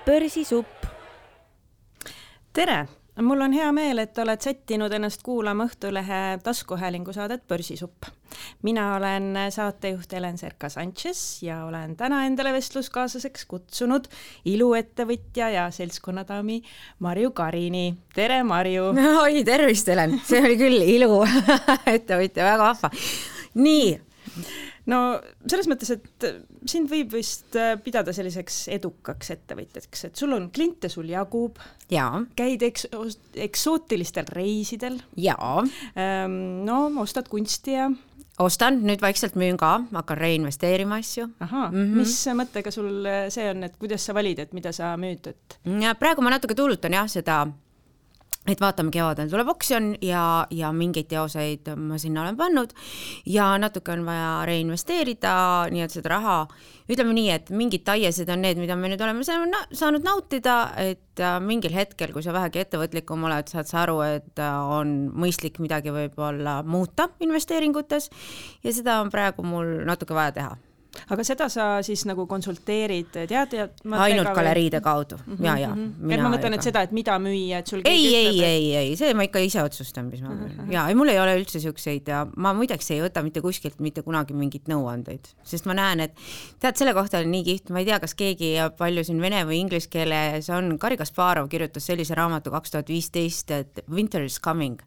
Börsisupp. Tere! Mul on hea meel, et oled sättinud ennast kuulama Õhtulehe taskuhäälingu saadet Börsisupp. Mina olen saatejuht Helen Serka-Sanchez ja olen täna endale vestluskaaslaseks kutsunud iluettevõtja ja seltskonnadaami Marju Karini. Tere, Marju! Oi, tervist, Helen! See oli küll iluettevõtja, väga vahva. Nii. No selles mõttes, et sind võib vist pidada selliseks edukaks ettevõtjaks, et sul on kliente, sul jagub, käid eksootilistel reisidel, ostad kunsti ja... Ostan, nüüd vaikselt müün ka, hakkan reinvesteerima asju. Mis mõttega sul see on, et kuidas sa valid, et mida sa müüd? Praegu ma natuke tuulutan seda, et vaatame, kevadel tuleb oksjon ja mingeid teoseid ma sinna olen pannud ja natuke on vaja reinvesteerida, nii et seda raha, ütleme nii, et mingid taiesed on need, mida me nüüd oleme saanud nautida, et mingil hetkel, kui sa vähegi ettevõtlikum oled, saad sa aru, et on mõistlik midagi võib-olla muuta investeeringutes ja seda on praegu mul natuke vaja teha. Aga seda sa siis nagu konsulteerid ainult galeriide kaudu. Ma mõtlen, et seda, et mida müüa, et sul ei, see ma ikka ise otsustan, mis ma müün. Mul ei ole üldse siukseid ja ma muideks ei võta mitte kuskilt mitte kunagi mingit nõuandeid, sest ma näen, et tead, selle kohta on nii kiht, ma ei tea, kas keegi palju siin vene või inglise keeles on, Garri Kasparov kirjutas sellise raamatu 2015, et Winter is coming.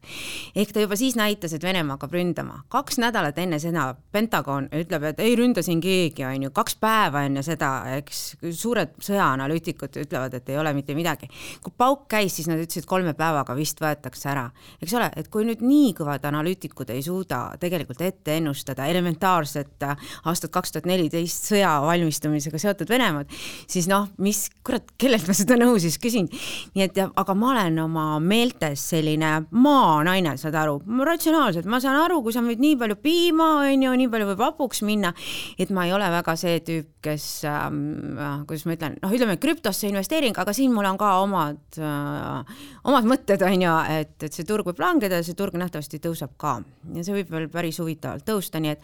Ehk ta juba siis näitas, et Venemaa hakkab ründama. 2 nädalat enne seda Pentagon ütleb, et ei ründa siin keegi, on ju 2 päeva enne seda, eks suured sõjaanalüütikud ütlevad, et ei ole mitte midagi. Kui pauk käis, siis nad ütlesid 3 päevaga vist võetakse ära. Eks ole, et kui nüüd nii kõvad analüütikud ei suuda tegelikult ette ennustada elementaarset aastat 2014 sõja valmistumisega seotud Venemaad, siis kellelt ma seda nõu siis küsin. Nii et, aga ma olen oma meeltes selline maanaine, saad aru, ratsionaalselt, ma saan aru, kui sa müüd nii palju piima, nii palju võib hapuks minna, et ma ei ole väga see tüüp, kes, kuidas ma ütlen, ütleme krüptosse investeering, aga siin mul on ka omad mõtted, et see turg võib langeda ja see turg nähtavasti tõuseb ka. Ja see võib veel päris huvitavalt tõusta, nii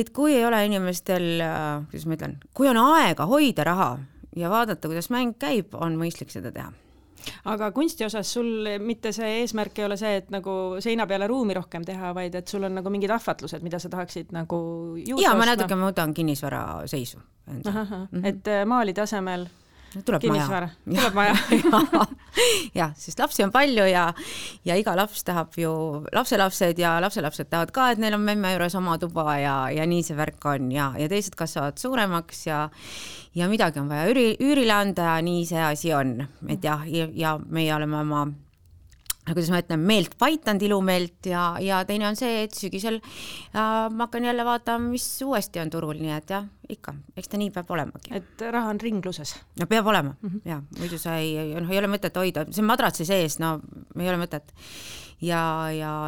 et kui ei ole inimestel, kuidas ma ütlen, kui on aega hoida raha ja vaadata, kuidas mäng käib, on mõistlik seda teha. Aga kunsti osas sul mitte see eesmärk ei ole see, et nagu seina peale ruumi rohkem teha, vaid et sul on nagu mingid ahvatlused, mida sa tahaksid nagu juurde ma natuke muudan kinnisvara seisu. Et maalide asemel tuleb kinnisvara. Tuleb maja. Ja, sest lapsi on palju ja iga laps tahab ju lapselapsed ja lapselapsed tahavad ka, et neil on memme juures oma tuba ja nii see värk on ja teised kasvavad suuremaks ja midagi on vaja üürile anda ja nii see asi on. Et ja meie oleme oma, kuidas ma ütlen, meelt paitanud, ilumeelt ja teine on see, et sügisel ma hakkan jälle vaatama, mis uuesti on turul, nii et ikka, eks ta nii peab olemagi. Et raha on ringluses. No peab olema, muidu sa ei ole mõtet hoida, see madratsi sees, ei ole mõtet. Ja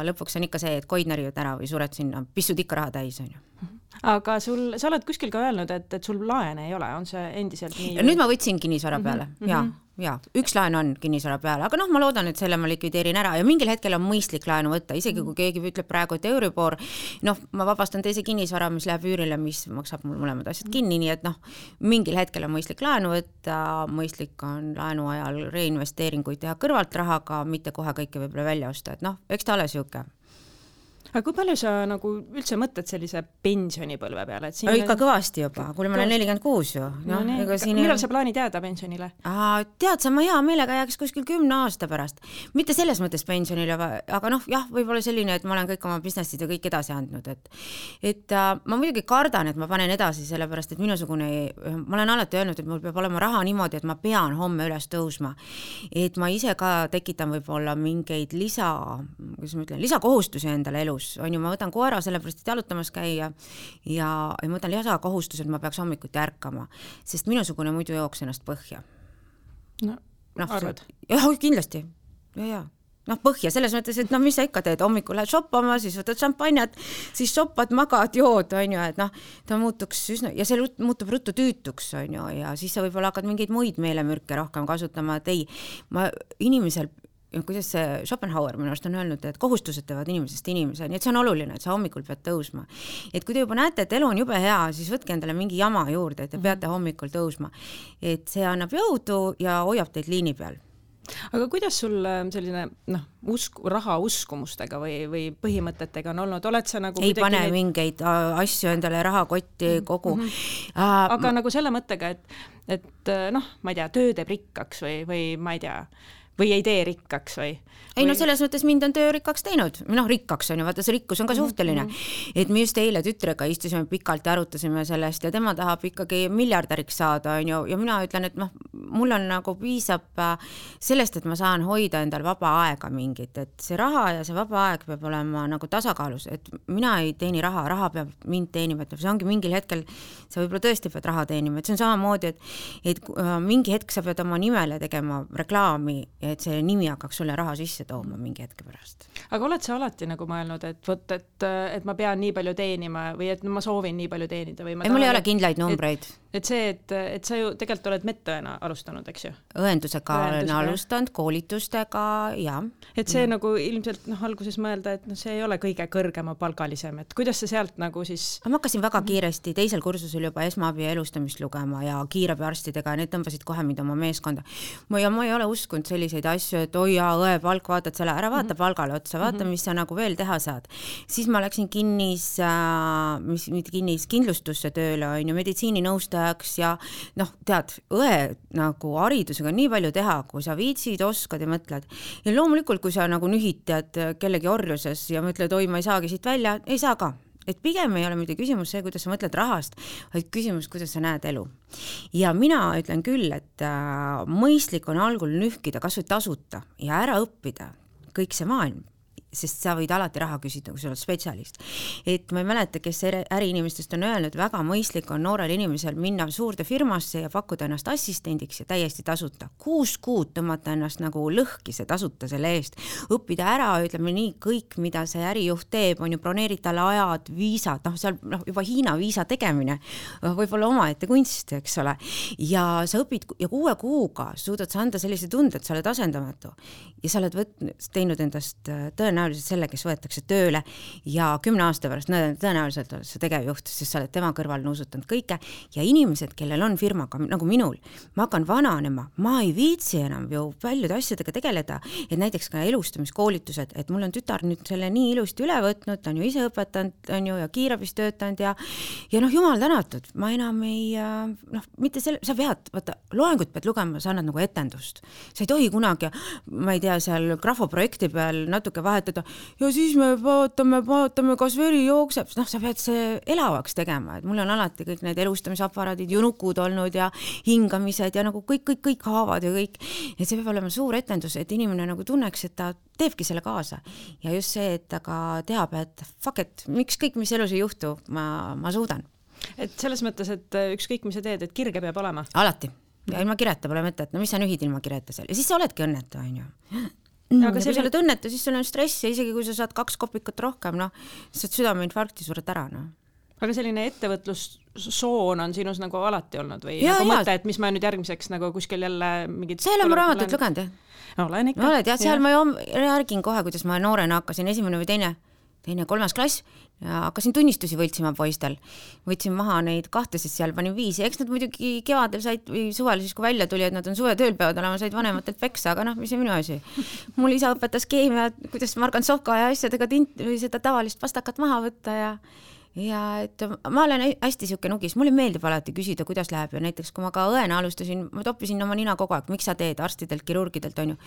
lõpuks on ikka see, et koid närivad ära või sured sinna, pissud ikka raha täis, on ju. Aga sa oled kuskil ka öelnud, et sul laene ei ole, on see endiselt nii? Nüüd ma võtsin kinnisvara peale, üks laen on kinnisvara peale, aga ma loodan, et selle ma likvideerin ära ja mingil hetkel on mõistlik laenu võtta, isegi kui keegi ütleb praegu, et Euribor, ma vabastan teise kinnisvara, mis läheb üürile, mis maksab mul mõlemad asjad kinni, nii et mingil hetkel on mõistlik laenu võtta, mõistlik on laenu ajal reinvesteeringuid teha kõrvalt rahaga, mitte kohe kõike võib-olla välja osta, et eks ta ole siuke. Aga kui palju sa nagu üldse mõtled sellise pensionipõlve peale? Ikka kõvasti juba, kui ma olen 46 ju. Millal sa plaanid jääda pensionile? Tead sa, ma hea meelega jääks kuskil 10 aasta pärast. Mitte selles mõttes pensionile, aga võib-olla selline, et ma olen kõik oma businessid ja kõik edasi andnud. Et ma muidugi kardan, et ma panen edasi sellepärast, et minusugune, ma olen alati öelnud, et mul peab olema raha niimoodi, et ma pean homme üles tõusma. Et ma ise ka tekitan võib-olla mingeid lisakohustusi endale elus. On ju, ma võtan koera sellepärast, et jalutamas käia ja ma võtan lisakohustused, ma peaks hommikuti ärkama, sest minusugune muidu jooks ennast põhja. Arvad? Kindlasti. Põhja, selles mõttes, et mis sa ikka teed, hommikul lähed shoppama, siis võtad šampanjat, siis shoppad, magad, jood, on ju, et ta muutuks üsna, ja see muutub ruttu tüütuks, on ju, ja siis sa võib-olla hakkad mingeid muid meelemürke rohkem kasutama, et ei, inimesel kuidas see Schopenhauer minu arust on öelnud, et kohustused teevad inimesest inimese, nii et see on oluline, et sa hommikul pead tõusma. Et kui te juba näete, et elu on jube hea, siis võtke endale mingi jama juurde, et te peate hommikul tõusma. Et see annab jõudu ja hoiab teid liini peal. Aga kuidas sul selline raha uskumustega või põhimõtetega on olnud? Oled sa nagu ei pane mingeid asju endale rahakotti kogu. Aga nagu selle mõttega, et ma ei tea, töö teeb rikkaks või ma ei tea, või ei tee rikkaks või? Ei no selles mõttes mind on töö rikkaks teinud. Rikkaks on ju, vaata see rikkus on ka suhteline. Et me just eile tütrega istusime pikalt ja arutasime sellest ja tema tahab ikkagi miljardäriks saada, on ju, ja mina ütlen, et mul on nagu piisab sellest, et ma saan hoida endal vaba aega mingit, et see raha ja see vaba aeg peab olema nagu tasakaalus, et mina ei teeni raha peab mind teenima, et see ongi mingil hetkel, sa võib-olla tõesti pead raha teenima, et see on samamoodi, et mingi hetk sa pead oma nimele tegema reklaami, et see nimi hakkaks sulle raha sisse tooma mingi hetke pärast. Aga oled sa alati nagu mõelnud, et ma pean nii palju teenima või et ma soovin nii palju teenida? Või mul ei ole kindlaid numbreid. Et sa ju tegelikult oled medõena alustanud, eks ju? Õendusega olen alustanud, koolitustega ja. Et see nagu ilmselt alguses mõelda, et see ei ole kõige kõrgema palgalisem, et kuidas sa sealt nagu siis... Ma hakkasin väga kiiresti teisel kursusel juba esmaabi ja elustamist lugema ja kiirabiarstidega, need tõmbasid kohe mind oma meeskonda. Ma ei ole uskunud selliseid asju, et oi ja õe palk, vaatad selle, ära vaata palgale otsa, vaata, mis sa nagu veel teha saad. Siis ma läksin kindlustusse tööle, on ju, meditsiininõustajaks ja tead, õe nagu haridusega nii palju teha, kui sa viitsid, oskad ja mõtled. Ja loomulikult, kui sa nagu nühid tead kellegi orjuses ja mõtled, oi, ma ei saagi siit välja, ei saa ka. Et pigem ei ole mitte küsimus see, kuidas sa mõtled rahast, vaid küsimus, kuidas sa näed elu. Ja mina ütlen küll, et mõistlik on algul nühkida, kas või tasuta ja ära õppida kõik see maailm, sest sa võid alati raha küsida, kui sa oled spetsialist. Et ma ei mäleta, kes äriinimestest on öelnud, väga mõistlik on noorel inimesel minna suurde firmasse ja pakkuda ennast assistendiks ja täiesti tasuta. 6 kuud tõmmata ennast nagu lõhki see tasuta selle eest. Õppida ära, ütleme nii, kõik, mida see ärijuht teeb, on ju broneerid talle ajad, viisad, seal juba Hiina viisa tegemine, võib-olla omaette kunst, eks ole. Ja sa õpid ja 6 kuuga suudad sa anda sellise tunde, et sa oled asendamatu. Ja sa oled teinud endast tõenäoliselt selle, kes võetakse tööle ja 10 aasta pärast tõenäoliselt oled sa tegevjuht, sest sa oled tema kõrval nuusutanud kõike ja inimesed, kellel on firmaga, nagu minul, ma hakkan vananema, ma ei viitsi enam ju paljude asjadega tegeleda, et näiteks ka elustamiskoolitused, et mul on tütar nüüd selle nii ilusti üle võtnud, ta on ju ise õpetanud, on ju, ja kiirabis töötanud ja jumal tänatud, ma enam ei, mitte selle, sa pead, vaata, loengut pead lugema, sa annad nagu etendust, sa ei tohi kunagi, ma ei tea, seal grafoprojekti peal natuke vahetada ja siis me vaatame, kas veri jookseb, sa pead see elavaks tegema, et mul on alati kõik need elustamisaparaadid, junukud olnud ja hingamised ja nagu kõik haavad ja kõik, et see peab olema suur etendus, et inimene nagu tunneks, et ta teebki selle kaasa ja just see, et ta ka teab, et fuck it, miks kõik, mis elus ei juhtu, ma suudan. Et selles mõttes, et ükskõik, mis sa teed, et kirge peab olema? Alati. Ja ilma kireta pole mõtet, mis sa nühid ilma kireta seal ja siis sa oledki õnnetu, on ju. Aga kui sa oled õnnetu, siis sul on stress ja isegi kui sa saad 2 kopikat rohkem, saad südameinfarkti sured ära, Aga selline ettevõtlussoon on sinus nagu alati olnud või nagu mõte, et mis ma nüüd järgmiseks nagu kuskil jälle mingid... See ei ole mu raamatut lugenud, jah? Olen ikka. Oled, jah, seal ma järgin kohe, kuidas ma noorena hakkasin, 1. või 2., 3. klass ja hakkasin tunnistusi võltsima poistel. Võtsin maha neid 2, siis seal panin 5 ja eks nad muidugi kevadel said või suvel siis, kui välja tuli, et nad on suvetööl peavad olema, said vanematelt peksa, aga mis see minu asi. Mul isa õpetas keemia, kuidas margansovka ja asjadega või seda tavalist pastakat maha võtta ja et ma olen hästi siuke nugis, mulle meeldib alati küsida, kuidas läheb ja näiteks kui ma ka õena alustasin, ma toppisin oma nina kogu aeg, miks sa teed arstidelt, kirurgidelt, on ju,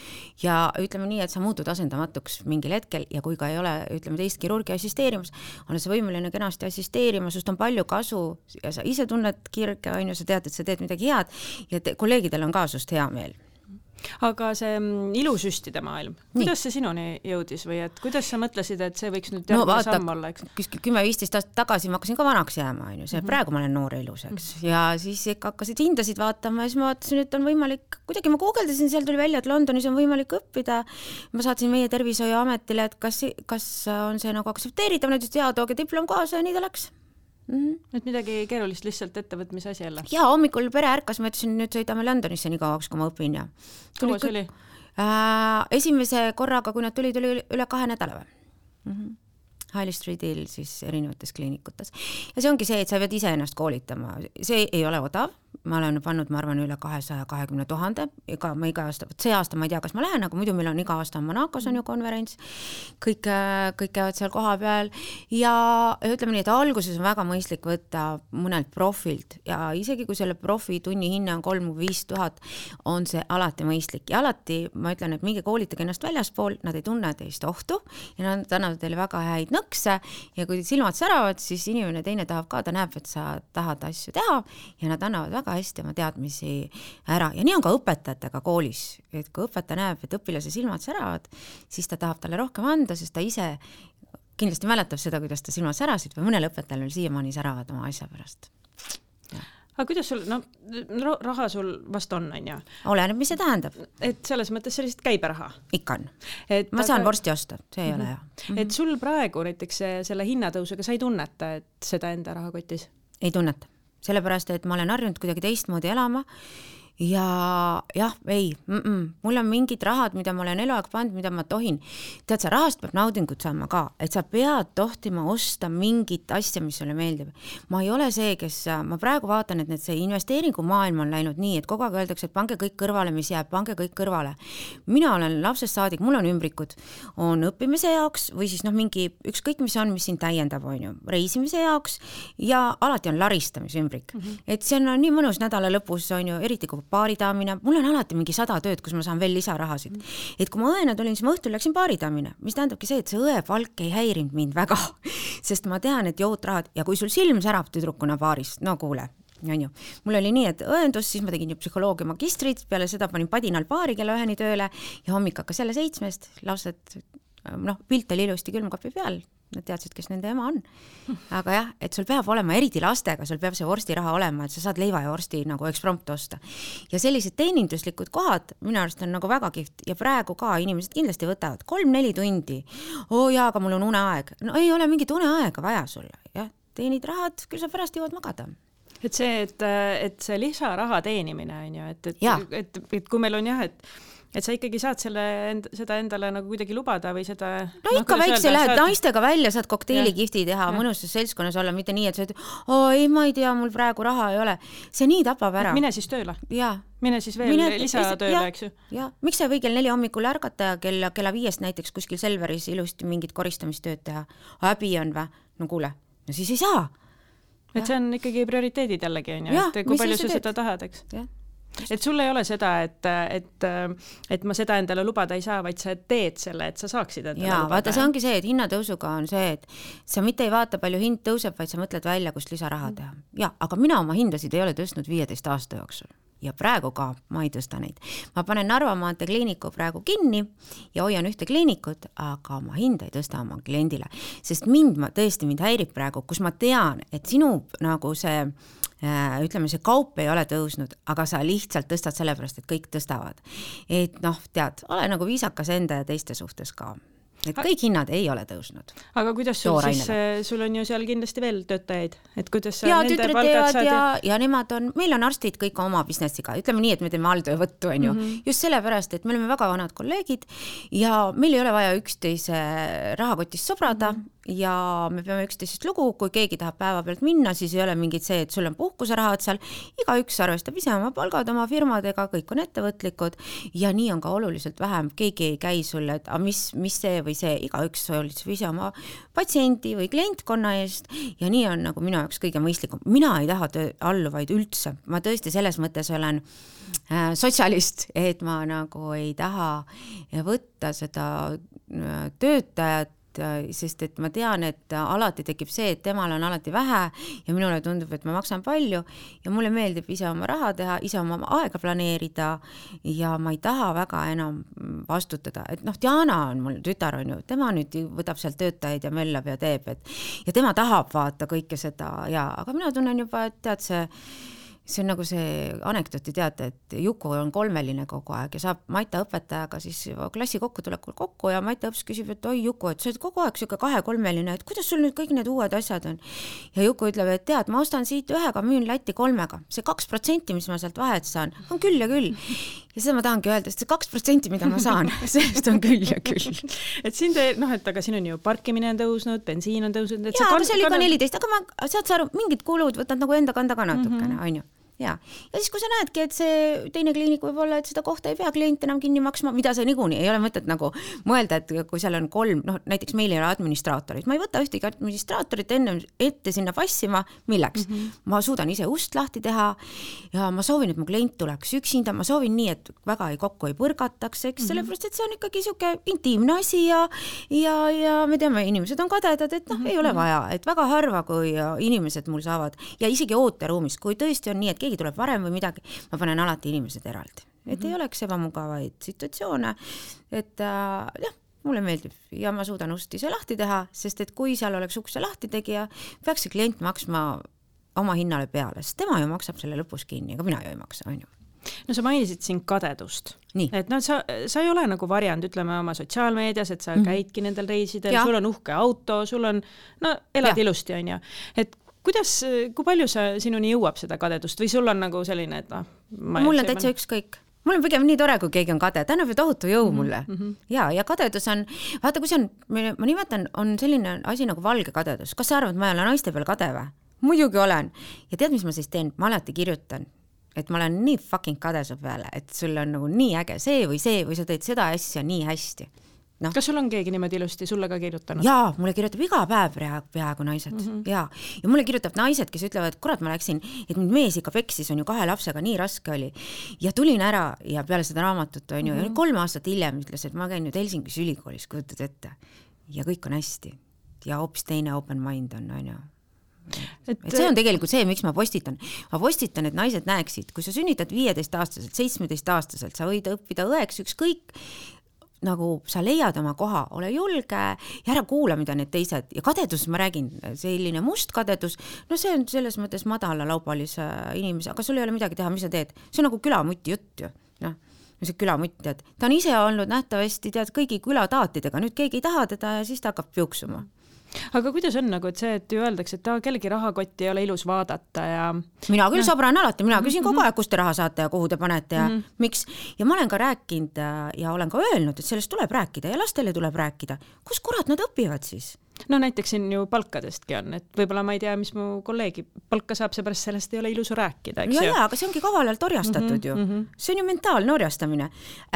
ja ütleme nii, et sa muutud asendamatuks mingil hetkel ja kui ka ei ole, ütleme teist kirurgi assisteerimas, on sa võimeline kenasti assisteerima, sust on palju kasu ja sa ise tunned kirge, on ju, sa tead, et sa teed midagi head ja kolleegidel on ka sust hea meel. Aga see ilusüstide maailm, kuidas see sinuni jõudis või et kuidas sa mõtlesid, et see võiks nüüd samm olla, eks? 10-15 aastat tagasi ma hakkasin ka vanaks jääma, on ju, see praegu ma olen noor ilus, eks, ja siis ikka hakkasid hindasid vaatama ja siis ma vaatasin, et on võimalik, kuidagi ma guugeldasin, seal tuli välja, et Londonis on võimalik õppida, ma saatsin meie tervishoiuametile, et kas on see nagu aktsepteeritav, nad ütlesid, tooge diplom kaasa ja nii ta läks. Et midagi keerulist lihtsalt ettevõtmise asi jälle? Ja hommikul pere ärkas, ma ütlesin, nüüd sõidame Londonisse nii kauaks, kui ma õpin ja kaua see oli? Esimese korraga, kui nad tulid, oli üle 2 nädala või? High Streetil siis erinevates kliinikutes. Ja see ongi see, et sa pead ise ennast koolitama. See ei ole odav. Ma olen pannud, ma arvan, üle 220 000. Ma iga aasta, see aasta ma ei tea, kas ma lähen, aga muidu meil on iga aasta Monacos on ju konverents. Kõik käivad seal koha peal. Ja ütleme nii, et alguses on väga mõistlik võtta mõnelt profilt. Ja isegi kui selle profi tunni hinne on 3 või 5 000, on see alati mõistlik. Ja alati ma ütlen, et minge koolitage ennast väljaspool, nad ei tunne teist ohtu ja nad annavad teile väga häid nõkse ja kui silmad säravad, siis inimene teine tahab ka, ta näeb, et sa tahad asju teha ja nad annavad väga hästi oma teadmisi ära. Ja nii on ka õpetajatega koolis, et kui õpetaja näeb, et õpilase silmad säravad, siis ta tahab talle rohkem anda, sest ta ise kindlasti mäletab seda, kuidas ta silmad särasid või mõnel õpetajal siiamaani säravad oma asja pärast. Aga kuidas sul, raha sul vast on ju? Oleneb, mis see tähendab. Et selles mõttes sellist käiberaha? Ikka on. Ma saan vorsti osta, see ei ole hea. Et sul praegu näiteks selle hinnatõusega sa ei tunneta, et seda enda rahakotis? Ei tunneta. Sellepärast, et ma olen harjunud kuidagi teistmoodi elama ja jah, ei, mul on mingid rahad, mida ma olen eluaeg pannud, mida ma tohin. Tead, sa rahast peab naudingut saama ka, et sa pead tohtima osta mingit asja, mis sulle meeldib. Ma ei ole see, kes, ma praegu vaatan, et see investeeringu maailm on läinud nii, et kogu aeg öeldakse, et pange kõik kõrvale, mis jääb, pange kõik kõrvale. Mina olen lapsest saadik, mul on ümbrikud, on õppimise jaoks või siis mingi ükskõik, mis sind täiendab, on ju, reisimise jaoks ja alati on laristamise ümbrik. Et see on nii mõnus nädala lõpus, on ju, eriti kui baaridaamine, mul on alati mingi 100 tööd, kus ma saan veel lisarahasid. Et kui ma õena tulin, siis ma õhtul läksin baaridaamine, mis tähendabki see, et see õe palk ei häirinud mind väga, sest ma tean, et jootrahad ja kui sul silm särab tüdrukuna baaris, no kuule, on ju. Mul oli nii, et õendus, siis ma tegin ju psühholoogia magistrit, peale seda panin padinal baari kella 1 tööle ja hommik hakkas jälle 7, lapsed, pilt oli ilusti külmkapi peal, nad teadsid, kes nende ema on. Aga jah, et sul peab olema, eriti lastega, sul peab see vorstiraha olema, et sa saad leiva ja vorsti nagu eksprompt osta. Ja sellised teeninduslikud kohad minu arust on nagu väga kihvt ja praegu ka inimesed kindlasti võtavad 3-4 tundi. Jaa, aga mul on uneaeg. No ei ole mingit uneaega vaja sulle. Ja, teenid rahad, küll sa pärast jõuad magada. Et see lisaraha teenimine on ju, et kui meil on jah, et sa ikkagi saad seda endale nagu kuidagi lubada või seda... No ikka väikse lähed naistega välja, saad kokteelikihti teha, mõnusas seltskonnas olla, mitte nii, et sa ütled, ei, ma ei tea, mul praegu raha ei ole. See nii tapab ära. Mine siis tööle. Ja. Mine siis veel lisatööle, eks ju. Ja. Miks sa ei või kell 4 hommikul ärgata ja kella 5 näiteks kuskil Selveris ilusti mingit koristamistööd teha? Häbi on või? No kuule, no siis ei saa. Et see on ikkagi prioriteedid jällegi, on ju, et kui palju sa seda tahad, eks? Jah. Et sul ei ole seda, et ma seda endale lubada ei saa, vaid sa teed selle, et sa saaksid endale lubada. Vaata, see ongi see, et hinnatõusuga on see, et sa mitte ei vaata palju hind tõuseb, vaid sa mõtled välja, kust lisaraha teha. Ja, aga mina oma hindasid ei ole tõstnud 15 aasta jooksul. Ja praegu ka ma ei tõsta neid. Ma panen Narva maantee kliiniku praegu kinni ja hoian ühte kliinikut, aga ma hinda ei tõsta oma kliendile. Sest mind häirib praegu, kus ma tean, et sinu nagu see ütleme, see kaup ei ole tõusnud, aga sa lihtsalt tõstad sellepärast, et kõik tõstavad. Et tead, ole nagu viisakas enda ja teiste suhtes ka. Et kõik hinnad ei ole tõusnud. Aga kuidas sul on ju seal kindlasti veel töötajaid? Et kuidas sa nende tütred palgad saad? Ja nemad on, meil on arstid kõik oma businessiga. Ütleme nii, et me teeme alltöövõttu, on ju. Just sellepärast, et me oleme väga vanad kolleegid ja meil ei ole vaja üksteise rahakotist sobrada ja me peame üksteisest lugu, kui keegi tahab päeva pealt minna, siis ei ole mingit see, et sul on puhkuserahad seal, igaüks arvestab ise oma palgad oma firmadega, kõik on ettevõtlikud ja nii on ka oluliselt vähem, keegi ei käi sulle, et mis see või see, igaüks hoolitseb ise oma patsiendi või klientkonna eest ja nii on nagu minu jaoks kõige mõistlikum. Mina ei taha alluvaid üldse, ma tõesti selles mõttes olen sotsialist, et ma nagu ei taha võtta seda töötajat, sest et ma tean, et alati tekib see, et temal on alati vähe ja minule tundub, et ma maksan palju ja mulle meeldib ise oma raha teha, ise oma aega planeerida ja ma ei taha väga enam vastutada, et Diana on mul tütar, on ju, tema nüüd võtab sealt töötajaid ja möllab ja teeb, ja tema tahab vaata kõike seda ja, aga mina tunnen juba, et tead see see on nagu see anekdooti teate, et Juku on kolmeline kogu aeg ja saab Maita õpetajaga siis klassi kokkutulekul kokku ja Maita õps küsib, et oi Juku, et sa oled kogu aeg siuke 2-3-line, et kuidas sul nüüd kõik need uued asjad on? Ja Juku ütleb, et tead, ma ostan siit 1-ga, müün Lätti 3-ga. See 2%, mis ma sealt vahet saan, on küll ja küll. Ja seda ma tahangi öelda, et see 2%, mida ma saan, sellest on küll ja küll. Et siin et aga siin on ju parkimine on tõusnud, bensiin on tõusnud. Jaa, aga see oli ka 14, aga ma saad sa aru, mingid kulud võtad nagu enda kanda ka natukene, on ju. Ja siis kui sa näedki, et see teine kliinik võib olla, et seda kohta ei pea klient enam kinni maksma, mida see niikuinii ei ole mõtet nagu mõelda, et kui seal on 3, näiteks meil ei ole administraatorit, ma ei võta ühtegi administraatorit ette sinna passima, milleks? Ma suudan ise ust lahti teha ja ma soovin, et mu klient tuleks üksinda, ma soovin nii, et väga kokku ei põrgataks, eks, sellepärast, et see on ikkagi siuke intiimne asi ja me teame, inimesed on kadedad, et ei ole vaja, et väga harva, kui inimesed mul saavad ja isegi ooteruumis, kui tõesti on nii, et keegi tuleb varem või midagi, ma panen alati inimesed eraldi. Et ei oleks ebamugavaid situatsioone, et mulle meeldib ja ma suudan ust ise lahti teha, sest et kui seal oleks ukse lahti tegija, peaks see klient maksma oma hinnale peale, sest tema ju maksab selle lõpus kinni, aga mina ju ei maksa, on ju. No sa mainisid siin kadedust. Nii. Et sa ei ole nagu variant, ütleme oma sotsiaalmeedias, et sa käidki nendel reisidel, sul on uhke auto, sul on, elad ilusti, on ju. Et kui palju sinuni jõuab seda kadedust või sul on nagu selline, et mul on täitsa ükskõik. Mul on pigem nii tore, kui keegi on kade. Ta annab ju tohutu jõu mulle. Ja kadedus on, vaata, kui see on, ma nimetan, on selline asi nagu valge kadedus. Kas sa arvad, et ma ei ole naiste peal kade või? Muidugi olen. Ja tead, mis ma siis teen? Ma alati kirjutan, et ma olen nii fucking kade su peale, et sul on nagu nii äge see või sa teed seda asja nii hästi. No. Kas sul on keegi niimoodi ilusti sulle ka kirjutanud? Jaa, mulle kirjutab iga päev peaaegu naised. Ja mulle kirjutab naised, kes ütlevad, et kurat, ma läksin, et mind mees ikka peksis, on ju 2 lapsega, nii raske oli. Ja tulin ära ja peale seda raamatut, on ju, ja 3 aastat hiljem ütles, et ma käin nüüd Helsingis ülikoolis, kujutad ette. Ja kõik on hästi. Ja hoopis teine open mind on ju. Et see on tegelikult see, miks ma postitan. Ma postitan, et naised näeksid, kui sa sünnitad 15-aastaselt, 17-aastaselt, sa võid õppida õeks ükskõik, nagu sa leiad oma koha, ole julge ja ära kuula, mida need teised. Ja kadedus, ma räägin, selline must kadedus, see on selles mõttes madala laupalise inimese, aga sul ei ole midagi teha, mis sa teed. See on nagu külamutti jutt ju. See külamutt, tead. Ta on ise olnud nähtavasti, tead, kõigi külataatidega. Nüüd keegi ei taha teda ja siis ta hakkab piuksuma. Aga kuidas on nagu, et see, et ju öeldakse, et kellegi rahakotti ei ole ilus vaadata ja... Mina küll sobran alati, mina küsin kogu aeg, kust te raha saate ja kuhu te panete ja miks. Ja ma olen ka rääkinud ja olen ka öelnud, et sellest tuleb rääkida ja lastele tuleb rääkida. Kus kurat nad õpivad siis? No näiteks siin ju palkadestki on, et võib-olla ma ei tea, mis mu kolleegi palka saab, seepärast sellest ei ole ilus rääkida. Ja, aga see ongi kavalalt orjastatud ju. See on ju mentaalne orjastamine.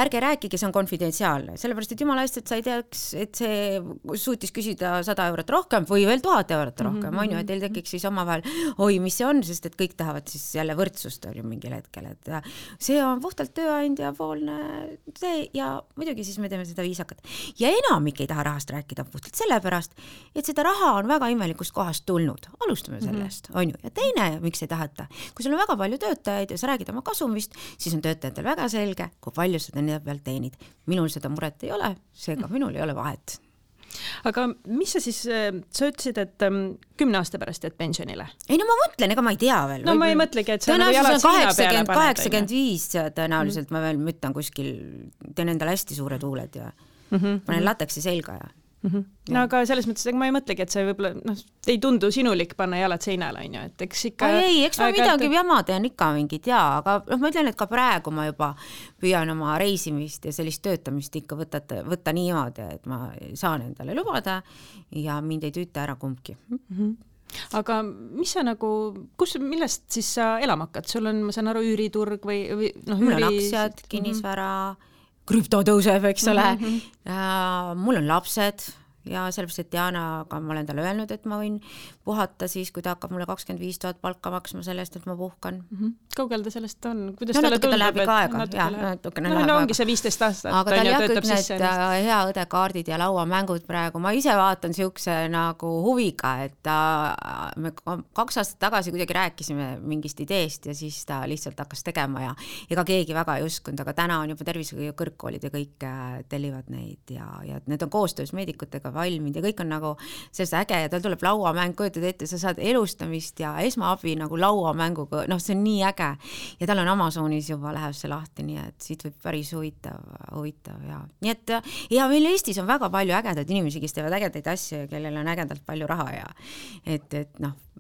Ärge rääkige, see on konfidentsiaalne. Sellepärast, et jumala eest, et sa ei teaks, et see suutis küsida 100 eurot rohkem või veel 1000 eurot rohkem, on ju, et teil tekiks siis omavahel, oi, mis see on, sest et kõik tahavad siis jälle võrdsust on ju mingil hetkel, et see on puhtalt tööandja poolne see ja muidugi siis me teeme seda viisakat. Ja enamik ei taha rahast rääkida puhtalt sellepärast, et seda raha on väga imelikust kohast tulnud. Alustame sellest, on ju. Ja teine, miks ei tahata? Kui sul on väga palju töötajaid ja sa räägid oma kasumist, siis on töötajatel väga selge, kui palju sa nende peal teenid. Minul seda muret ei ole, seega minul ei ole vahet. Aga mis sa siis, sa ütlesid, et 10 aasta pärast jääd pensionile? Ei, no ma mõtlen, ega ma ei tea veel. No ma ei mõtlegi, et sa nagu jalad seina peale paned. 85 tõenäoliselt ma veel müttan kuskil, teen endale hästi suure tuuled ja panen lateksi selga ja No aga selles mõttes, ma ei mõtlegi, et see võib-olla ei tundu sinulik panna jalad seinale, on ju, et eks ikka... eks ma midagi jama teen ikka mingid, aga ma ütlen, et ka praegu ma juba püüan oma reisimist ja sellist töötamist ikka võtta niimoodi, et ma saan endale lubada ja mind ei tüüta ära kumbki. Aga mis sa nagu, millest siis sa elama hakkad? Sul on, ma saan aru, üüriturg või mul on aktsiad, kinnisvara, krüpto tõuseb, eks ole. Mul on lapsed ja sellepärast, et Dianaga ma olen talle öelnud, et ma võin puhata siis, kui ta hakkab mulle 25 000 palka maksma sellest, et ma puhkan. Kaugel ta sellest on? Kuidas talle tundub? Läheb ikka aega. Ongi see 15 aastat. Aga tal jah kõik need hea õdekaardid ja lauamängud praegu. Ma ise vaatan siukse nagu huviga, et me 2 aastat tagasi kuidagi rääkisime mingist ideest ja siis ta lihtsalt hakkas tegema ja ega keegi väga ei uskunud, aga täna on juba tervishoiu kõrgkoolid ja kõik tellivad neid ja need on koostöös meedikutega valminud ja kõik on nagu sellest äge ja tal tuleb lauamäng, kujutad ette, sa saad elustamist ja esmaabi nagu lauamänguga, see on nii äge ja tal on Amazonis juba läheb see lahti, nii et siit võib päris huvitav ja nii et ja meil Eestis on väga palju ägedaid inimesi, kes teevad ägedaid asju ja kellel on ägedalt palju raha ja et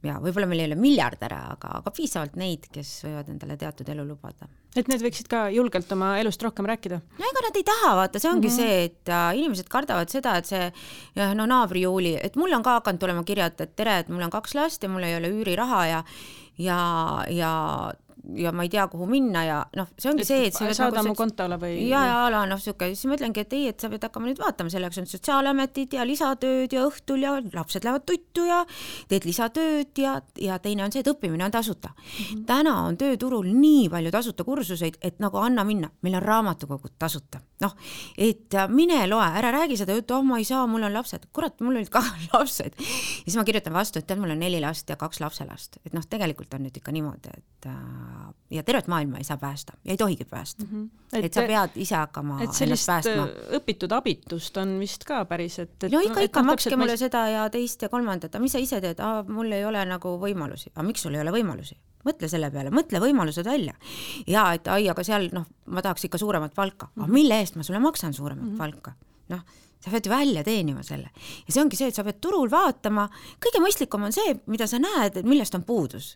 ja võib-olla meil ei ole miljardäre, aga piisavalt neid, kes võivad endale teatud elu lubada. Et need võiksid ka julgelt oma elust rohkem rääkida? No ega nad ei taha, vaata, see ongi see, et inimesed kardavad seda, et see naabri Juuli, et mul on ka hakanud tulema kirjad, et tere, et mul on 2 last ja mul ei ole üüriraha ja ma ei tea, kuhu minna ja see ongi see, et saada mu kontole või? Ja siuke, siis mõtlengi, et ei, et sa pead hakkama nüüd vaatama, selleks on sotsiaalametid ja lisatööd ja õhtul ja lapsed lähevad tuttu ja teed lisatööd ja teine on see, et õppimine on tasuta. Täna on tööturul nii palju tasuta kursuseid, et nagu anna minna, meil on raamatukogud tasuta. Et mine loe, ära räägi seda juttu, ma ei saa, mul on lapsed. Kurat, mul olid ka lapsed. Ja siis ma kirjutan vastu, et mul on 4 last ja 2 lapselast. Et tegelikult on nüüd ikka niimoodi, et ja tervet maailma ei saa päästa ja ei tohigi päästa. Et sa pead ise hakkama ennast päästma. Õpitud abitust on vist ka päris, et no ikka makske mulle seda ja teist ja kolmandat, mis sa ise teed? Mul ei ole nagu võimalusi. Aga miks sul ei ole võimalusi? Mõtle selle peale, mõtle võimalused välja. Ja et aga seal ma tahaks ikka suuremat palka. Aga mille eest ma sulle maksan suuremat palka? Sa pead ju välja teenima selle. Ja see ongi see, et sa pead turul vaatama. Kõige mõistlikum on see, mida sa näed, et millest on puudus.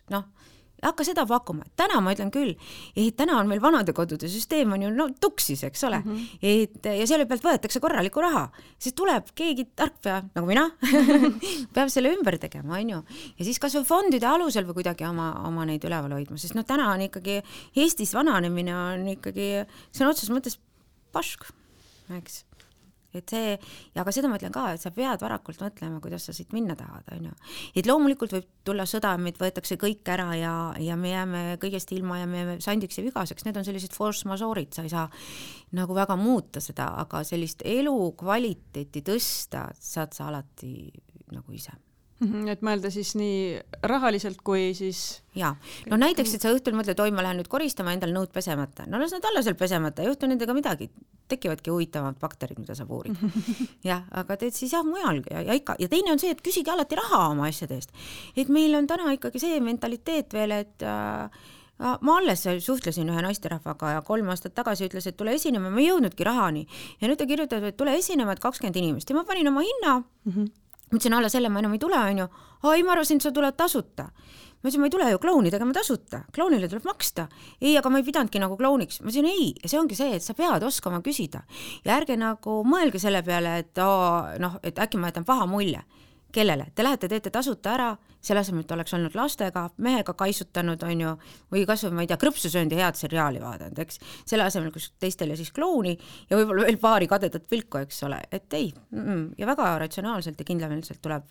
Hakka seda pakkuma. Täna ma ütlen küll, et täna on meil vanadekodude süsteem on ju tuksis, eks ole. Ja selle pealt võetakse korraliku raha. Siis tuleb keegi tarkpea, nagu mina, peab selle ümber tegema, on ju. Ja siis kas või fondide alusel või kuidagi oma neid üleval hoidma, sest täna on ikkagi Eestis vananemine on ikkagi, see on otseses mõttes pask, eks. Et see, ja aga seda ma ütlen ka, et sa pead varakult mõtlema, kuidas sa siit minna tahad, on ju. Et loomulikult võib tulla sõda, meid võetakse kõik ära ja me jääme kõigest ilma ja me jääme sandiks ja vigaseks. Need on sellised force majeure'id, sa ei saa nagu väga muuta seda, aga sellist elu kvaliteeti tõsta saad sa alati nagu ise. Et mõelda siis nii rahaliselt kui siis... Ja, näiteks, et sa õhtul mõtled, oi, ma lähen nüüd koristama endal nõud pesemata. Las nad alla seal pesemata, ei juhtu nendega midagi. Tekivadki huvitavad bakterid, mida sa puurid. Ja, aga teed siis mujal ja ikka. Ja teine on see, et küsige alati raha oma asjade eest. Et meil on täna ikkagi see mentaliteet veel, et ma alles suhtlesin ühe naisterahvaga ja 3 aastat tagasi ütles, et tule esinema, ma ei jõudnudki rahani. Ja nüüd ta kirjutab, et tule esinema, et 20 inimest. Ja ma panin oma hinna. Mõtlesin alla selle, ma enam ei tule, on ju. Ma arvasin, et sa tuled tasuta. Ma ütlesin, ma ei tule ju klounidega, ma tasuta. Klounile tuleb maksta. Ei, aga ma ei pidanudki nagu klouniks. Ma ütlesin, ei, ja see ongi see, et sa pead oskama küsida. Ja ärge nagu mõelge selle peale, et äkki ma jätan paha mulje. Kellele? Te lähete, teete tasuta ära, selle asemel, et oleks olnud lastega, mehega kaisutanud, on ju, või kas või, ma ei tea, krõpsusöönd ja head seriaali vaadanud, eks. Selle asemel, kus teistele siis klouni ja võib-olla veel paari kadedat pilku, eks ole, et ei. Ja väga ratsionaalselt ja kindlameelselt tuleb.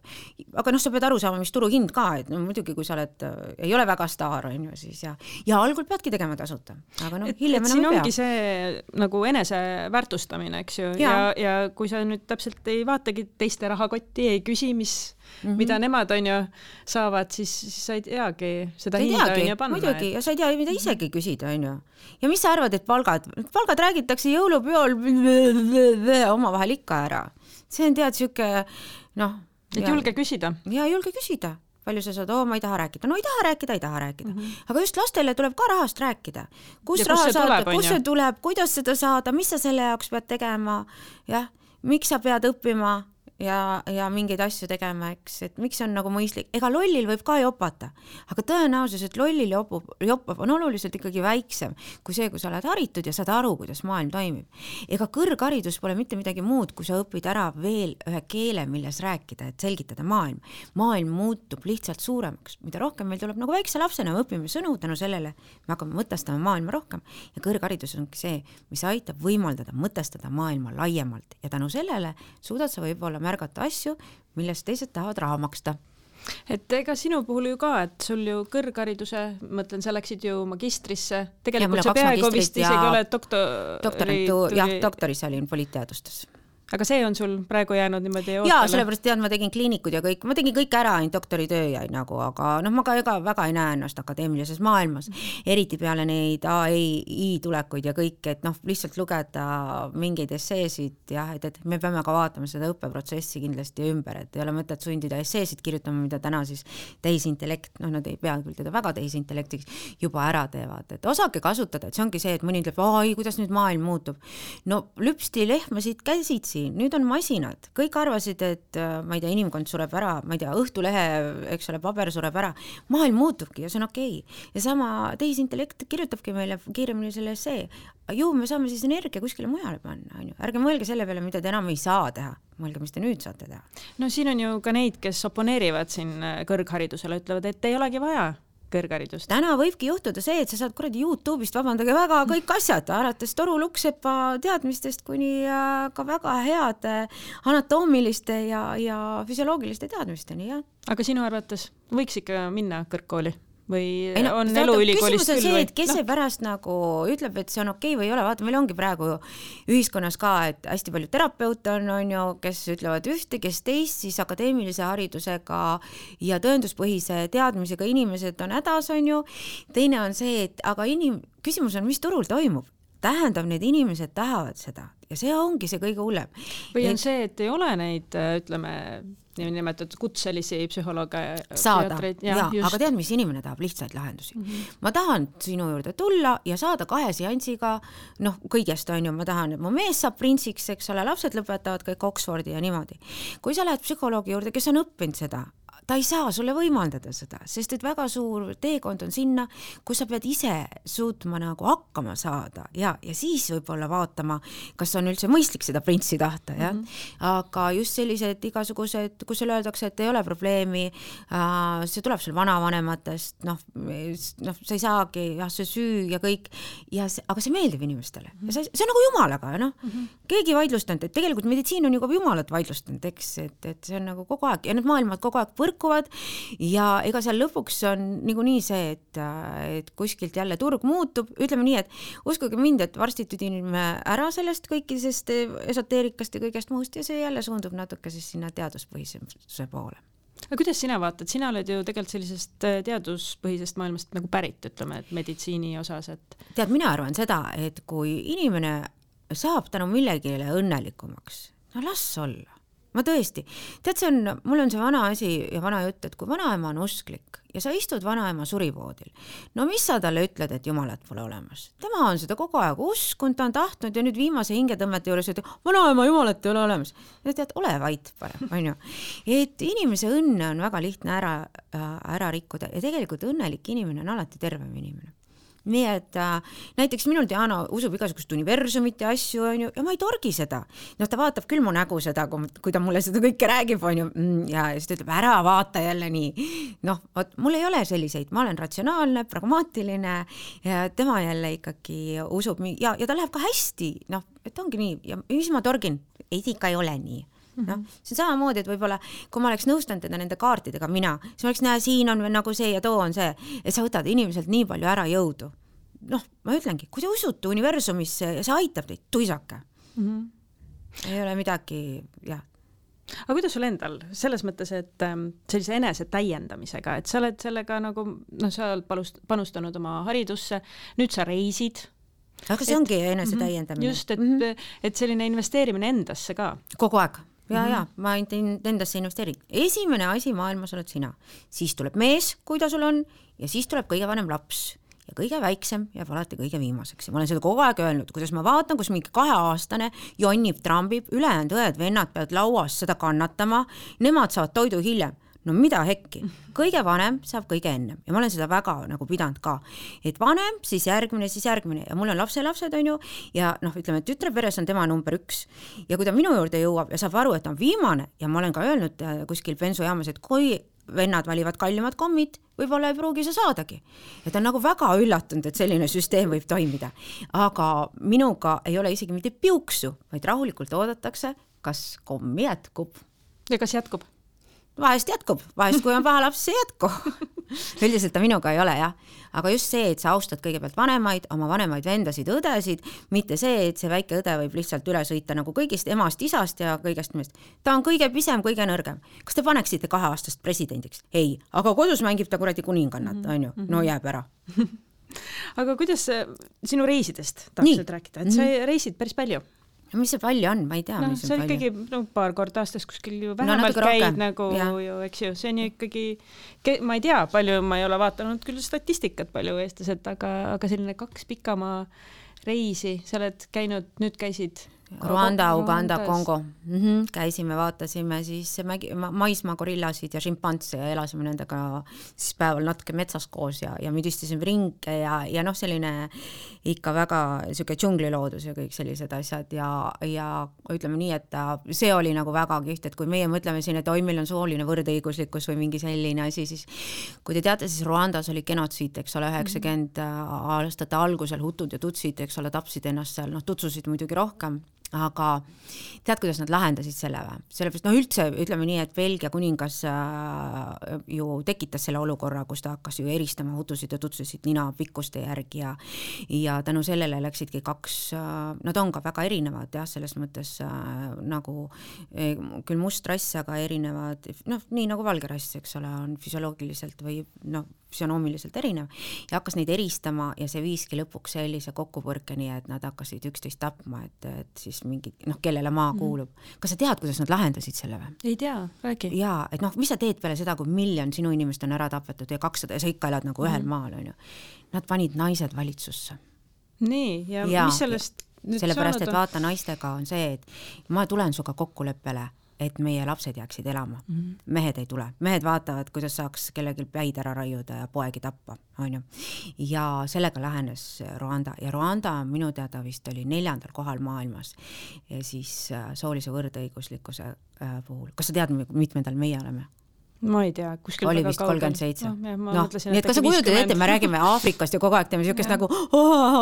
Aga sa pead aru saama, mis turuhind ka, et muidugi, kui sa oled, ei ole väga staar, on ju, siis ja algul peadki tegema tasuta. Aga hiljem enam ei pea. Siin ongi see nagu enese väärtustamine, eks ju, ja kui sa nüüd täpselt ei vaatagi teiste rahakotti, ei küsi, mida nemad on ju saavad, siis sa ei teagi seda hinda on ju panna. Muidugi, ja sa ei tea, mida isegi küsida, on ju. Ja mis sa arvad, et palgad räägitakse jõulupeol oma vahel ikka ära. See on tead siuke, et julge küsida. Ja julge küsida. Palju sa saad, ma ei taha rääkida. No ei taha rääkida. Aga just lastele tuleb ka rahast rääkida. Kus see tuleb, kuidas seda saada, mis sa selle jaoks pead tegema, miks sa pead õppima ja mingeid asju tegema, eks, et miks on nagu mõistlik. Ega lollil võib ka jopata, aga tõenäosus, et lollil jopab on oluliselt ikkagi väiksem kui see, kui sa oled haritud ja saad aru, kuidas maailm toimib. Ega kõrgharidus pole mitte midagi muud, kui sa õpid ära veel ühe keele, milles rääkida, et selgitada maailm. Maailm muutub lihtsalt suuremaks. Mida rohkem meil tuleb nagu väikse lapsena, me õpime sõnu tänu sellele, me hakkame mõtestama maailma rohkem ja kõrgharidus ongi see, mis aitab võimaldada mõtestada maailma laiemalt ja tänu sellele suudad sa võib-olla märgata asju, millest teised tahavad raha maksta. Et ega sinu puhul ju ka, et sul ju kõrghariduse, mõtlen, sa läksid ju magistrisse, tegelikult see peaaegu vist isegi ole doktoris jah, doktoris olin poliitteadustes. aga see on sul praegu jäänud niimoodi ootele? Jaa, sellepärast ma tegin kliinikud ja kõik, ma tegin kõik ära, ainult doktoritöö jäi nagu, aga ma ka väga ei näe ennast akadeemilises maailmas, eriti peale neid AI tulekuid ja kõik, et lihtsalt lugeda mingeid esseesid ja et me peame ka vaatama seda õppeprotsessi kindlasti ümber, et ei ole mõtet sundida esseesid kirjutama, mida täna siis tehisintellekt, nad ei pea küll teda väga tehisintellektiks juba ära teevad, et osake kasutada, et see ongi see, et mõni ütleb, kuidas nüüd maailm muutub. No lüpsti lehmasid käsitsi, nüüd on masinad, kõik arvasid, et ma ei tea, inimkond sureb ära, ma ei tea, Õhtulehe, eks ole, paber sureb ära, maailm muutubki ja see on okei. Ja sama tehisintellekt kirjutabki meile kiiremini selle essee. Ju me saame siis energia kuskile mujale panna, ärge mõelge selle peale, mida te enam ei saa teha, mõelge, mis te nüüd saate teha. No siin on ju ka neid, kes oponeerivad siin kõrgharidusele, ütlevad, et ei olegi vaja kõrgharidust. Täna võibki juhtuda see, et sa saad kuradi YouTube'ist, vabandage väga, kõik asjad, alates Toru Luksepa teadmistest kuni ka väga heade anatoomiliste ja füsioloogiliste teadmisteni, jah. Aga sinu arvates võiks ikka minna kõrgkooli? Või on eluülikoolist küll? Küsimus on see, et kes see pärast nagu ütleb, et see on okei või ei ole. Vaata, meil ongi praegu ühiskonnas ka, et hästi palju terapeute on ju, kes ütlevad ühte, kes teist, siis akadeemilise haridusega ja tõenduspõhise teadmisega inimesed on hädas, on ju. Teine on see, et aga küsimus on, mis turul toimub. Tähendab, need inimesed tahavad seda ja see ongi see kõige hullem. Või on see, et ei ole neid, ütleme, nimetatud kutselisi psühholooge saada, aga tead, mis inimene tahab lihtsaid lahendusi. Ma tahan sinu juurde tulla ja saada 2 seansiga, kõigest on ju, ma tahan, et mu mees saab printsiks, eks ole, lapsed lõpetavad kõik Oxfordi ja niimoodi. Kui sa lähed psühholoogi juurde, kes on õppinud seda, ta ei saa sulle võimaldada seda, sest et väga suur teekond on sinna, kus sa pead ise suutma nagu hakkama saada ja siis võib-olla vaatama, kas on üldse mõistlik seda printsi tahta, jah. Aga just sellised igasugused, kus sulle öeldakse, et ei ole probleemi, see tuleb sul vanavanematest, sa ei saagi, see süü ja kõik, aga see meeldib inimestele. Ja see on nagu jumalaga, keegi vaidlustanud, et tegelikult meditsiin on juba jumalat vaidlustanud, eks, et see on nagu kogu aeg ja need maailmad kogu aeg põrkuvad ja ega seal lõpuks on niikuinii see, et kuskilt jälle turg muutub, ütleme nii, et uskuge mind, et varsti tüdinime ära sellest kõikidest esoteerikast ja kõigest muust ja see jälle suundub natuke siis sinna teaduspõhisuse poole. Aga kuidas sina vaatad? Sina oled ju tegelikult sellisest teaduspõhisest maailmast nagu pärit, ütleme, et meditsiini osas, et... Tead, mina arvan seda, et kui inimene saab tänu millegile õnnelikumaks, las olla. Ma tõesti, tead, mul on see vana asi ja vana jutt, et kui vanaema on usklik ja sa istud vanaema surivoodil, no mis sa talle ütled, et jumalat pole olemas? Tema on seda kogu aeg uskund, ta on tahtnud ja nüüd viimase hingetõmmete juures ütleb, vanaema jumalat ei ole olemas. Ja tead, ole vait parem, on ju. Et inimese õnne on väga lihtne ära rikkuda ja tegelikult õnnelik inimene on alati tervem inimene. Nii et näiteks minul Diana usub igasugust universumit ja asju, on ju, ja ma ei torgi seda. Ta vaatab küll mu nägu seda, kui ta mulle seda kõike räägib, on ju, ja siis ta ütleb, ära vaata jälle nii. Mul ei ole selliseid, ma olen ratsionaalne, pragmaatiline ja tema jälle ikkagi usub ja ta läheb ka hästi, et ongi nii, ja mis ma torgin, ei ikka ei ole nii. See on samamoodi, et võib-olla kui ma oleks nõustanud teda nende kaartidega mina, siis ma oleks näe, siin on nagu see ja too on see, et sa võtad inimeselt nii palju ära jõudu. Ma ütlengi, kui te usute universumisse ja see aitab teid, tuisake. Ei ole midagi, jah. Aga kuidas sul endal, selles mõttes, et sellise enese täiendamisega, et sa oled sellega nagu, sa oled panustanud oma haridusse, nüüd sa reisid. Aga see ongi enese täiendamine. Just, et selline investeerimine endasse ka. Kogu aeg. Ja, ma endasse investeerin. Esimene asi maailmas oled sina. Siis tuleb mees, kui ta sul on, ja siis tuleb kõige vanem laps. Ja kõige väiksem jääb alati kõige viimaseks. Ja ma olen seda kogu aeg öelnud, kuidas ma vaatan, kus mingi 2-aastane jonnib, trambib, ülejäänud õed, vennad peavad lauas seda kannatama, nemad saavad toidu hiljem. No mida hekki? Kõige vanem saab kõige ennem ja ma olen seda väga nagu pidanud ka, et vanem, siis järgmine ja mul on lapselapsed, on ju, ja ütleme, et tütre peres on tema number 1 ja kui ta minu juurde jõuab ja saab aru, et ta on viimane ja ma olen ka öelnud kuskil bensujaamas, et kui vennad valivad kallimad kommid, võib-olla ei pruugi sa saadagi. Et on nagu väga üllatunud, et selline süsteem võib toimida, aga minuga ei ole isegi mitte piuksu, vaid rahulikult oodatakse, kas komm jätkub. Ja kas jätkub? vahest jätkub, vahest kui on paha laps, see jätku. Üldiselt ta minuga ei ole, jah. Aga just see, et sa austad kõigepealt vanemaid, oma vanemaid vendasid, õdesid, mitte see, et see väike õde võib lihtsalt üle sõita nagu kõigist emast, isast ja kõigest millest. Ta on kõige pisem, kõige nõrgem. Kas te paneksite 2-aastast presidendiks? Ei, aga kodus mängib ta kuradi kuningannat, on ju? No jääb ära. Aga kuidas sinu reisidest tahaksid rääkida? Et sa reisid päris palju? Mis see palju on? Ma ei tea, mis see on palju. ikkagi paar korda aastas kuskil ju vähemalt käid nagu ju, eks ju, see on ju ikkagi, ma ei tea, palju ma ei ole vaatanud küll statistikat palju eestlased, aga selline 2 pikamaa reisi, sa oled käinud, nüüd käisid Rwanda, Uganda, Kongo. Käisime, vaatasime siis maismaa gorillasid ja šimpanse ja elasime nendega siis päeval natuke metsas koos ja müdistasime ringe ja noh, selline ikka väga siuke džungliloodus ja kõik sellised asjad ja ütleme nii, et see oli nagu väga kihvt, et kui meie mõtleme siin, et meil on sooline võrdõiguslikkus või mingi selline asi, siis kui te teate, siis Rwandas oli genotsiid, eks ole, 90 aastate algusel hutud ja tutsid, eks ole, tapsid ennast seal, tutsusid muidugi rohkem, aga tead, kuidas nad lahendasid selle või? Sellepärast, üldse ütleme nii, et Belgia kuningas ju tekitas selle olukorra, kus ta hakkas ju eristama hutusid ja tutsusid nina pikkuste järgi ja tänu sellele läksidki 2, nad on ka väga erinevad, jah, selles mõttes nagu küll must rass, aga erinevad, nii nagu valge rass, eks ole, on füsioloogiliselt või füsionoomiliselt erinev ja hakkas neid eristama ja see viiski lõpuks sellise kokkupõrkeni, et nad hakkasid üksteist tapma, et siis mingi, kellele maa kuulub. Kas sa tead, kuidas nad lahendasid selle või? Ei tea, räägi. Jaa, et mis sa teed peale seda, kui 1 miljon sinu inimest on ära tapetud ja 200 ja sa ikka elad nagu ühel maal, on ju. Nad panid naised valitsusse. Nii, ja mis sellest nüüd sellepärast, et vaata, naistega on see, et ma tulen suga kokkuleppele, et meie lapsed jääksid elama. Mehed ei tule. Mehed vaatavad, kuidas saaks kellelgi päid ära raiuda ja poegi tappa, on ju. Ja sellega lähenes Rwanda. Ja Rwanda minu teada vist oli 4. kohal maailmas ja siis soolise võrdõiguslikkuse puhul. Kas sa tead, mitmendal meie oleme? Ma ei tea, kuskil oli vist 37. Nii et kas sa kujutad ette, me räägime Aafrikast ja kogu aeg teeme siukest nagu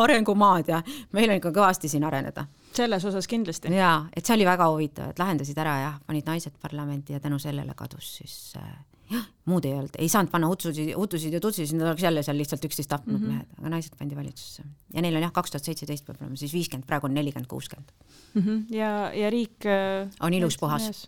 arengumaad ja meil on ikka kõvasti siin areneda. Selles osas kindlasti. Jaa, et see oli väga huvitav, et lahendasid ära ja panid naised parlamenti ja tänu sellele kadus siis muud ei olnud. Ei saanud panna hutusid ja tutsid, nad oleks jälle seal lihtsalt üksteist tapnud mehed, aga naised pandi valitsusse. Ja neil on 2017 peab olema siis 50, praegu on 40-60. Ja riik on ilus puhas,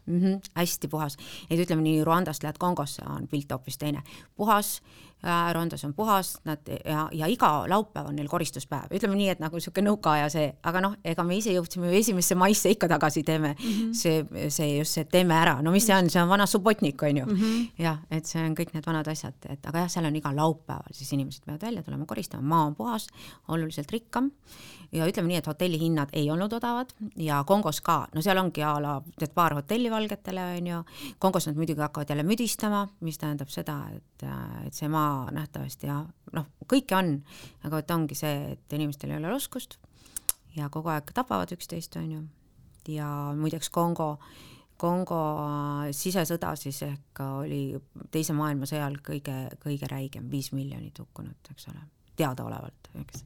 hästi puhas. Et ütleme nii, Rwandast lähed Kongosse on pilt hoopis teine. Puhas, Rwandas on puhas ja iga laupäev on neil koristuspäev. Ütleme nii, et nagu siuke nõukaaja see, aga ega me ise jõudsime 1. maisse ikka tagasi teeme see teeme ära. No mis see on? See on vana subotnik, on ju. Ja, et see on kõik need vanad asjad, aga jah, seal on iga laupäeval, siis inimesed peavad välja tulema koristama, maa on puhas, oluliselt rikkam ja ütleme nii, et hotellihinnad ei olnud odavad ja Kongos ka, seal ongi teed paar hotelli valgetele, on ju. Kongos nad muidugi hakkavad jälle müdistama, mis tähendab seda, et see maa nähtavasti ja kõike on, aga et ongi see, et inimestel ei ole oskust ja kogu aeg tapavad üksteist, on ju. Ja muideks Kongo sisesõda siis ehk oli teise maailmasõjal kõige räigem, 5 miljonit hukkunut, eks ole, teadaolevalt, eks.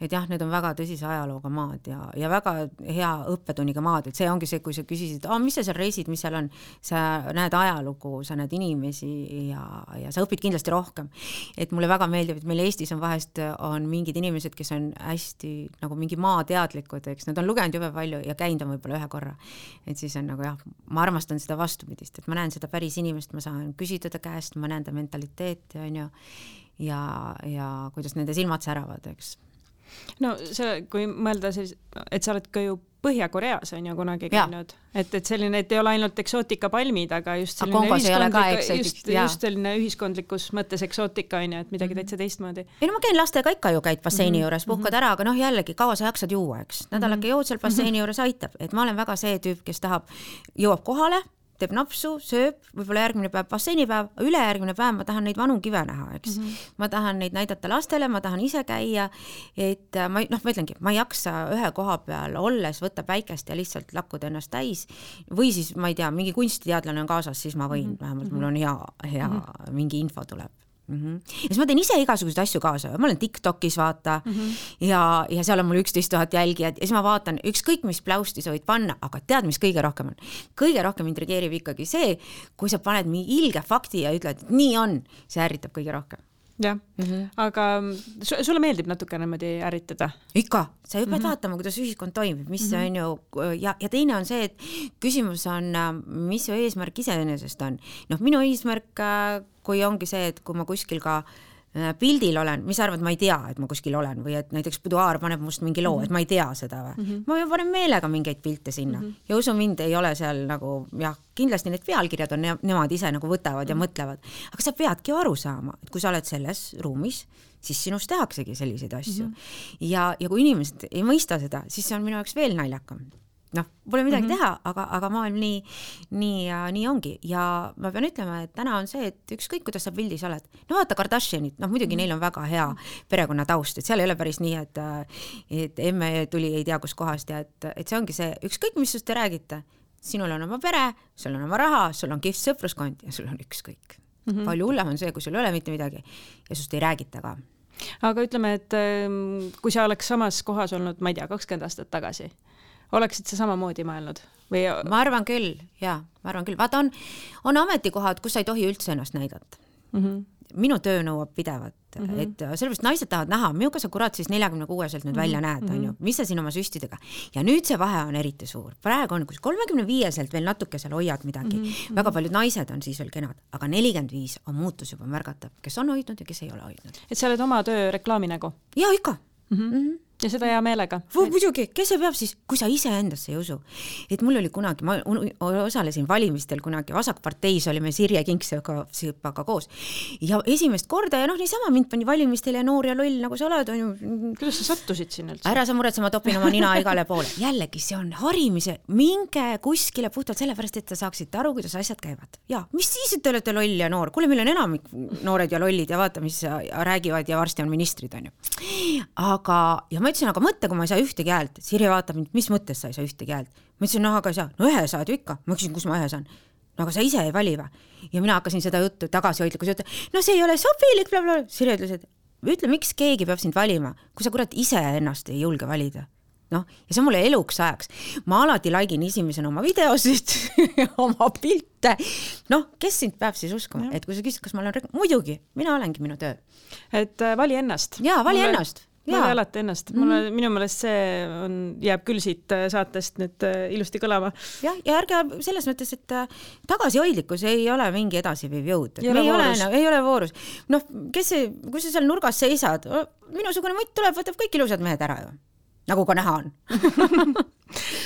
Et jah, need on väga tõsise ajalooga maad ja väga hea õppetunniga maad, et see ongi see, kui sa küsisid, mis sa seal reisid, mis seal on, sa näed ajalugu, sa näed inimesi ja sa õpid kindlasti rohkem. Et mulle väga meeldib, et meil Eestis on vahest on mingid inimesed, kes on hästi nagu mingi maateadlikud, eks, nad on lugenud jube palju ja käinud on võib-olla 1 korra. Et siis on nagu jah, ma armastan seda vastupidist, et ma näen seda päris inimest, ma saan küsida ta käest, ma näen ta mentaliteeti, on ju, ja kuidas nende silmad säravad, eks. No see, kui mõelda siis, et sa oled ka ju Põhja-Koreas on ju kunagi käinud, et selline, et ei ole ainult eksootikapalmid, aga just selline ühiskondlikus mõttes eksootika on ju, et midagi täitsa teistmoodi. Ei no ma käin lastega ikka ju käid basseini juures, puhkad ära, aga jällegi kaua sa jaksad juua, eks. Nädalake jood seal basseini juures aitab, et ma olen väga see tüüp, kes jõuab kohale, teeb napsu, sööb, võib-olla järgmine päev basseinipäev, ülejärgmine päev ma tahan neid vanu kive näha, eks. Ma tahan neid näidata lastele, ma tahan ise käia, et ma ütlengi, ma ei jaksa ühe koha peal olles võtta päikest ja lihtsalt lakkuda ennast täis või siis, ma ei tea, mingi kunstiteadlane on kaasas, siis ma võin, vähemalt mul on hea mingi info tuleb. Ja siis ma teen ise igasuguseid asju kaasa, ma olen TikTokis vaata ja seal on mul 11 000 jälgijad ja siis ma vaatan ükskõik mis pläusti sa võid panna, aga tead, mis kõige rohkem on? Kõige rohkem intrigeerib ikkagi see, kui sa paned mingi ilge fakti ja ütled, et nii on, see ärritab kõige rohkem. Jah, aga sulle meeldib natuke niimoodi ärritada? Ikka, sa ju pead vaatama, kuidas ühiskond toimib, mis on ju, ja teine on see, et küsimus on, mis su eesmärk iseenesest on. Minu eesmärk, kui ongi see, et kui ma kuskil ka pildil olen, mis arvad, ma ei tea, et ma kuskil olen või et näiteks Buduaar paneb must mingi loo, et ma ei tea seda või. Ma panen meelega mingeid pilte sinna ja usu mind, ei ole seal nagu, jah, kindlasti need pealkirjad on, nemad ise nagu võtavad ja mõtlevad, aga sa peadki aru saama, et kui sa oled selles ruumis, siis sinust tehaksegi selliseid asju. Ja kui inimesed ei mõista seda, siis see on minu jaoks veel naljakam. Pole midagi teha, aga maailm nii ongi ja ma pean ütlema, et täna on see, et ükskõik, kuidas sa pildis oled. Vaata Kardashianit, muidugi neil on väga hea perekonna taust, et seal ei ole päris nii, et emme tuli ei tea kus kohast ja et see ongi see, ükskõik, mis sust te räägite, sinul on oma pere, sul on oma raha, sul on kihvt sõpruskond ja sul on ükskõik. Palju hullem on see, kui sul ei ole mitte midagi ja sust ei räägita ka. Aga ütleme, et kui sa oleks samas kohas olnud, ma ei tea, 20 aastat tagasi, oleksid sa samamoodi mõelnud? Ma arvan küll, Vaata, on ametikohad, kus sa ei tohi üldse ennast näidata. Minu töö nõuab pidevat, et sellepärast naised tahavad näha, millega sa kurat siis 46-selt nüüd välja näed, on ju, mis sa siin oma süstidega. Ja nüüd see vahe on eriti suur. Praegu on, kus 35-selt veel natuke seal hoiad midagi. Väga paljud naised on siis veel kenad, aga 45 on muutus juba märgatav, kes on hoidnud ja kes ei ole hoidnud. Et sa oled oma töö reklaaminägu? Ja ikka. Ja seda hea meelega. Muidugi, kes see peab siis, kui sa ise endasse ei usu. Et mul oli kunagi, ma osalesin valimistel kunagi, Vasakparteis olime Sirje Kingsõpaga koos. Ja esimest korda ja niisama mind pani valimistel ja noor ja loll, nagu sa oled. Kuidas sa sattusid siin üldse? Ära sa muretse, ma topin oma nina igale poole. Jällegi, see on harimise, minge kuskile puhtalt sellepärast, et te saaksite aru, kuidas asjad käivad. Ja, mis siis, et te olete loll ja noor? Kuule, meil on enamik noored ja lollid ja vaata, mis räägivad ja varsti on ministrid, on ju. Aga, ja ma ütlesin, aga mõtte, kui ma ei saa ühtegi häält. Sirje vaatab mind, mis mõttes sa ei saa ühtegi häält? Ma ütlesin, aga ei saa. Ühe saad ju ikka. Ma küsin, kus ma ühe saan. Aga sa ise ei vali või? Ja mina hakkasin seda juttu tagasihoidlikus juttu. See ei ole sobilik, blablabla. Sirje ütles, et ütle, miks keegi peab sind valima, kui sa kurat ise ennast ei julge valida. Ja see on mulle eluks ajaks. Ma alati laigin esimesena oma videosid, oma pilte. Kes sind peab siis uskuma? Et kui sa küsid, kas ma olen muidugi, mina olengi minu töö. Et vali ennast. Jaa, vali ennast. Vali alati ennast. Minu meelest see jääb küll siit saatest nüüd ilusti kõlama. Ja ärge selles mõttes, et tagasihoidlikkus ei ole mingi edasiviiv jõud. Ei ole voorus. Kui sa seal nurgas seisad, minusugune mutt tuleb, võtab kõik ilusad mehed ära ju. Nagu ka näha on.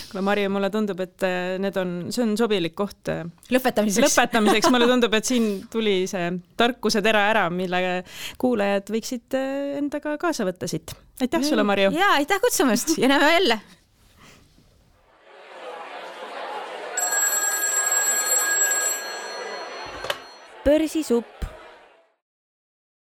Kuule, Marju, mulle tundub, et see on sobilik koht lõpetamiseks. Mulle tundub, et siin tuli see tarkuse tera ära, mille kuulajad võiksid endaga kaasa võtta siit. Aitäh sulle, Marju! Ja, aitäh kutsumast ja näeme jälle! Börsisupp